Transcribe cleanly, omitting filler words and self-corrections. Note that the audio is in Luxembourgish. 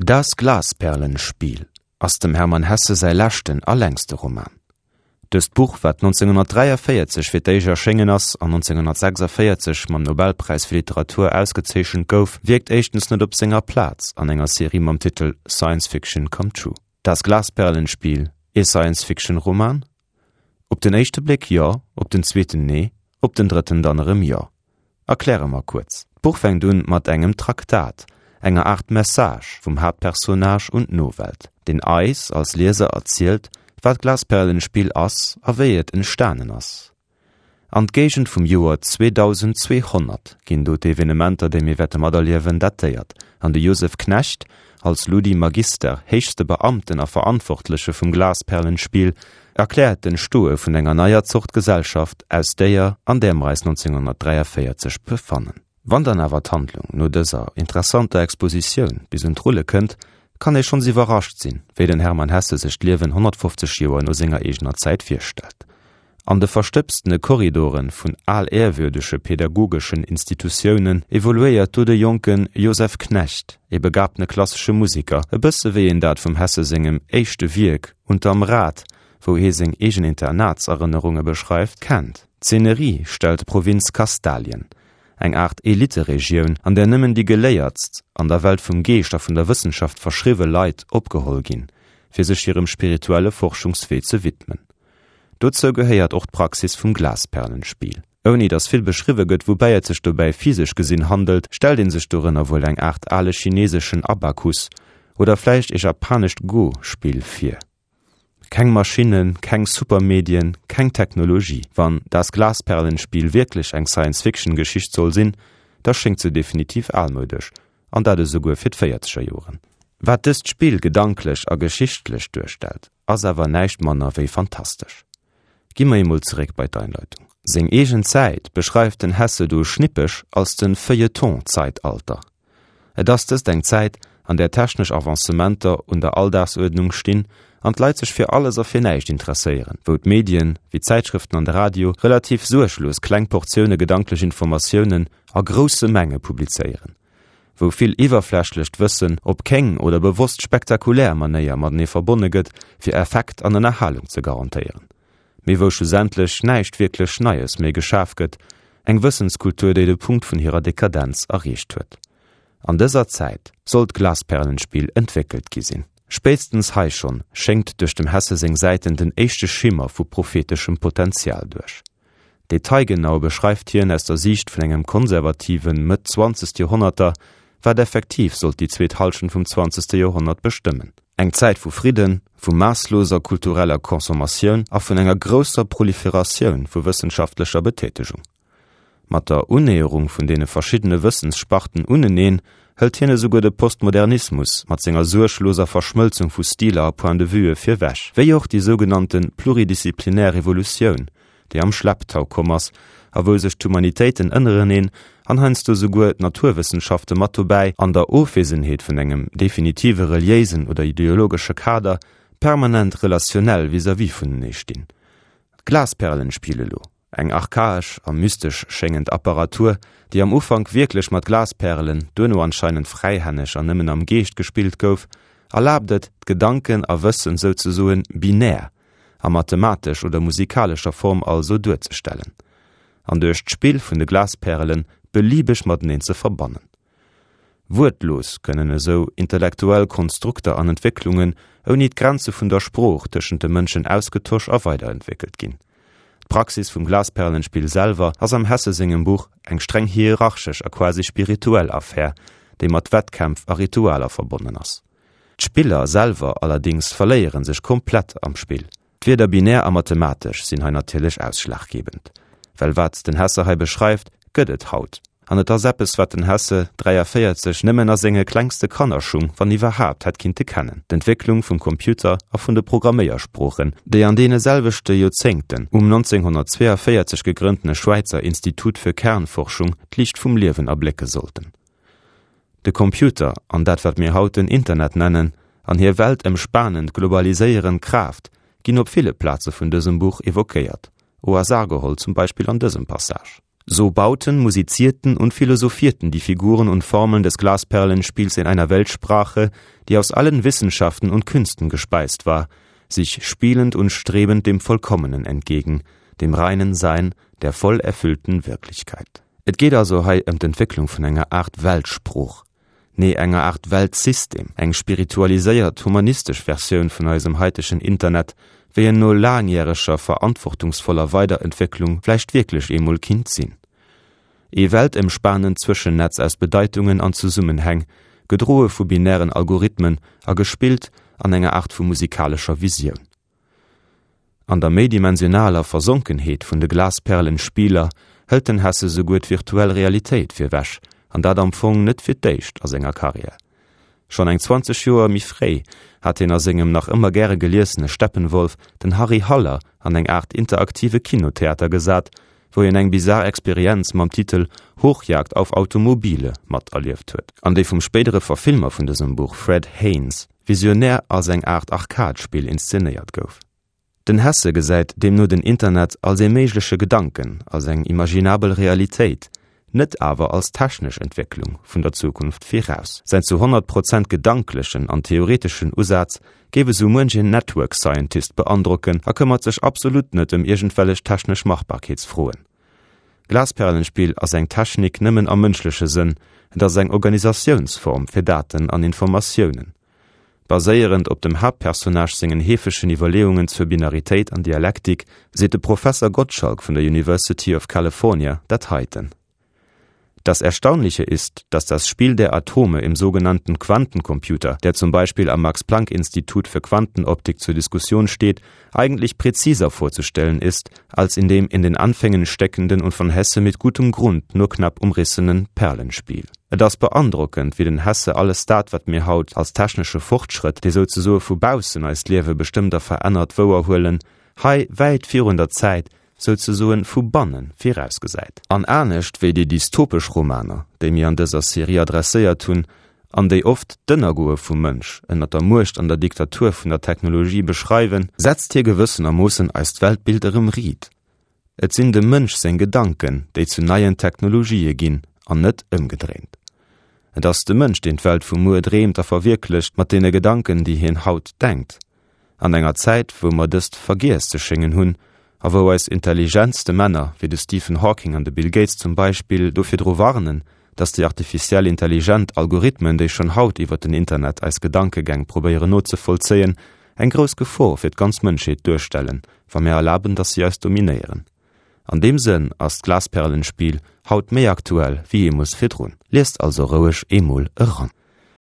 Das Glasperlenspiel ass dem Hermann Hesse säi leschten a längste Roman. Dëst Buch, wat 1943 fir d'éischt erschéngen ass an 1946 mam Nobelpräis fir Literatur ausgezeechent gouf, wierkt éischtens net op senger Plaz an enger Serie mam Titel Science Fiction Come True. Das Glasperlenspiel, ee Science-Fiction-Roman? Op den éischte Bléck jo, op den zweeten nee, op den drëtten dann erëm jo. Erkläre mer kuerz. D'Buch fänkt un mat engem Traktat, enger Aart Message vum Haaptpersonnage un d'Nowelt, deen eis als Lieser erzielt, wat d'Glasperlenspill ass a wéi et entstanen ass. An d'Géigend vum Joer 2200 ginn do d'Evenementer, déi mir wäerte materliewen, datéiert, an de Josef Knecht, als Ludi Magister, héchste Beamten a Verantwortleche vum Glasperlenspiel, erkläert d'Entstoe vun enger neier Zort Gesellschaft aus déier, an där mer eis 1943 befannen. Wann dann awer d'Handlung no dëser interessanter Expositioun bis un d'Rulle kënnt, kann ee schonns iwwerrascht sinn, wéi den Hermann Hesse sech d'Liewen 150 Joer no senger eegener Zäit virstellt. An de verstëbstene Korridore vun alehrwürdege pädagogeschen Institutiounen evoluéiert do de jonke Joseph Knecht, e begabtene klassesche Musiker, e bësse wéi een dat vum Hesse sengem éischte Wierk Unterm Rad, wou hie seng eegen Internatserënnerunge beschreift, kennt. D'Szenerie stellt d'Provinz Kastalien, eng Aart Eliteregioun, an där nëmmen déi geléiertst, an der Welt vum Geescht a vun der Wëssenschaft verschriwwe Leit opgeholl ginn, fir sech hirem spirituelle Forschungswee ze widmen. Dozou gehéiert och d'Praxis vum Glasperlenspiel. Ouni datt vill beschriwwe gëtt, woubäi et sech dobäi physesch gesinn handelt, stellt ee sech dorënner wuel eng Aart ale chineseschen Abakus oder vläicht e japanescht Go-Spill vir. Keng Maschinnen, keng Supermedien, keng Technologie. Wann Das Glasperlenspiel wierklech eng Science-Fiction-Geschicht soll sinn, da schéngt se definitiv almoudesch, an dat esouguer fir d'Véierzeger Joren. Wat dëst Spill gedanklech a geschichtlech duerstellt, ass awer näischt manner wéi fantastesch. Gi mer eemol zeréck bei d'Einleitung. Seng eegen Zäit beschreift den Hesse do schnippeg als de Feuilleton-Zeitalter. Et ass dëst eng Zäit, an där technesch Avancementer un der Alldagsuerdnung stinn an d'Leit sech fir alles a fir näischt interesséieren, wou d'Medien, wéi d'Zäitschrëften an de Radio, relativ suerglos kleng Portioune gedanklech Informatiounen a grousse Menge publizéieren. wou vill iwwerflächlecht Wëssen op kéng oder bewosst spektakulär Manéier matenee verbonne gëtt, fir Effekt an Ënnerhalung ze garantéieren, mee wou schlussendlech näischt wierklech Neies méi geschaf gëtt, eng Wëssenskultur, déi de Punkt vun hirer Dekadenz erreecht huet. An dëser Zäit soll d'Glasperlenspill entwéckelt gi sinn. Spéitstens hei schonn schéngt duerch dem Hesse seng Säiten den éischte Schimmer vu propheteschem Potenzial duerch. Detailgenau beschreift hien aus der Siicht vun engem konservativen Mëtt-zwanzegt Joerhonnerter, wat effektiv sollt déi zweet Hallschent vum zwanzegste Joerhonnert bestëmmen. Eng Zäit vu Fridden, vu maassloser kultureller Consommatioun a vun enger grousser Proliferatioun vu wëssenschaftlecher Betätegung. Mat der Unnäherung vun deene verschiddene Wëssenssparten uneneen hëlt hien esouguer de Postmodernismus mat senger suergloser Verschmëlzung vu Stiler a Point-de-vuë virwech, wéi och déi sougenannte pluridisziplinär Revolutioun, déi am Schlepptau komm ass a wou sech d'Humanitéiten ënnereneen an heiansdo souguer d'Naturwëssenschafte mat dobäi, an der Ofwesenheet vun engem definitive reliéisen oder ideologesche Kader, permanent relationell vis-à-vis vunenee stinn. D'Glasperlenspiel elo, eng archaesch a mystesch schéngend Apparatur, déi am Ufank wierklech mat Glaspärelen, duerno anscheinend fräihänneg an nëmmen am Geescht gespillt gouf, erlaabt et, d'Gedanken a Wëssen souzesoen binär, a mathematesch oder musikalescher Form also duerzestellen an duerch d'Spill vun de Glaspärelen beliebeg mateneen ze verbannen. Wuertlos kënnen esou intellektuell Konstrukter an Entwécklungen ouni d'Grenze vun der Sprooch tëschent de Mënschen ausgetosch a weiderentwéckelt ginn. D'Praxis vum Glasperlenspill selwer ass am Hesse sengem Buch eng streng hierarchesch a quasi spirituell Affär, déi mat Wettkämpf a Ritualer verbonnen ass. D'Spiller selwer allerdings verléieren sech komplett am Spill. D'Wierder binär a mathematesch sinn hei natierlech ausschlaggebend, well wat den Hesse hei beschreift, gëtt et haut. An et ass eppes, wat den Hesse 43 nëmmen a senge klengste Kannerschung, wann iwwerhaapt, hätt kinnte kennen, d'Entwécklung vum Computer a vun de Programméiersproochen, déi an deene selwechte Joerzéngten um 1942 gegrënntene Schwäizer Institut für Kernforschung d'Liicht vum Liewen erblécke sollten. De Computer an dat wat mir haut den Internet nennen, an hir weltëmspanend globaliséierend Kraaft ginn op ville Plaze vun dësem Buch evoquéiert, au hasard geholl zum Beispill an dësem Passage. So bauten, musizierten und philosophierten die Figuren und Formeln des Glasperlenspiels in einer Weltsprache, die aus allen Wissenschaften und Künsten gespeist war, sich spielend und strebend dem Vollkommenen entgegen, dem reinen Sein der voll erfüllten Wirklichkeit. Et geet also hei ëm d'Entwécklung vun enger Aart Weltsprooch, nee enger Aart Weltsystem, eng spiritualiséiert, humanistesch Versioun vun eisem haitegen Internet, wéi en no laangjäreger verantwortungsvoller Weiderentwécklung vläicht wierklech eemol kinnt sinn. Ee weltëmspanend Zwëschennetz aus Bedeitungen an Zesummenhäng, gedroe vu binären Algorithmen a gespillt an enger Aart vu musikalescher Visioun. An der méidimensionaler Versonkenheet vun de Glasperlenspieler hëlt den Hesse souguer d'virtuell Realitéit virwech, an dat am Fong net fir d'éischt a senger Karriär. Schonn eng 20 Joer méi fréi hat hien a sengem nach ëmmer gäre geliesene Steppenwolf den Harry Haller an eng Aart interaktive Kinotheater gesat, wou hien eng bizar Experienz mam Titel Hochjagd auf Automobile materlieft huet, an déi vum spéidere Verfilmer vun dësem Buch Fred Haynes visionär als eng Aart Arcade-Spill inszenéiert gouf. Den Hesse gesäit deemno den Internet als ee méigleche Gedanken, als eng imaginabel Realitéit, net awer als technesch Entwécklung vun der Zukunft viraus. Säin zu 100 Prozent gedanklechen an theoreteschen Usaz géif esou muench een Network Scientist beandrocken a këmmert sech absolut net ëm iergendwellech technesch Machbarkeetsfroen. Glasperlenspiel ass eng Technik nëmmen am mënschleche Sënn, et ass eng Organisatiounsform fir Daten an Informatiounen. Baséierend op dem Haaptpersonnage sengen heefegen Iwwerleeungen zur Binaritéit an Dialektik seet de Professer Gottschalk vun der University of California dat heiten. Das Erstaunliche ist, dass das Spiel der Atome im sogenannten Quantencomputer, der zum Beispiel am Max-Planck-Institut für Quantenoptik zur Diskussion steht, eigentlich präziser vorzustellen ist, als in dem in den Anfängen steckenden und von Hesse mit gutem Grund nur knapp umrissenen Perlenspiel. Et ass beandrockend, wéi den Hesse alles dat, wat mir haut als technesche Fortschrëtt, dee souzesoe vu baussen eist Liewe bestëmmt a verännert, wouerhuelen, hei wäit virun der Zäit, souzesoen vu banne virausgesäit. An anescht wéi déi dystopesch Romaner, déi mir an dëser Serie adresséiert hunn, an déi oft d'Ënnergoe vum Mënsch ënner der Muecht an der Diktatur vun der Technologie beschreiwen, setzt hie gewëssenermoossen eist Weltbild erëm riit, Et sinn dem Mënsch seng Gedanken, déi zu neien Technologië ginn, an net ëmgedréint. Et ass de Mënsch, deen d'Welt vu muer dreemt a verwierklecht mat deene Gedanken, déi hien haut denkt. An enger Zäit, wou mer dëst vergiess ze schéngen hunn, a wou eis intelligentste Männer, wéi de Stephen Hawking an de Bill Gates zum Beispill, do virdru warnen, dass déi artificiell intelligent Algorithmen, déi schonn haut iwwer den Internet eis Gedankegäng probéieren nozevollzéien, eng grouss Gefor fir d'ganz Mënschheet duerstellen, wa mir erlaben, dass si eis dominéieren. An deem Sënn ass d'Glasperlenspiel haut méi aktuell wéi jeemools virdrun. Liest also roueg eemol eran.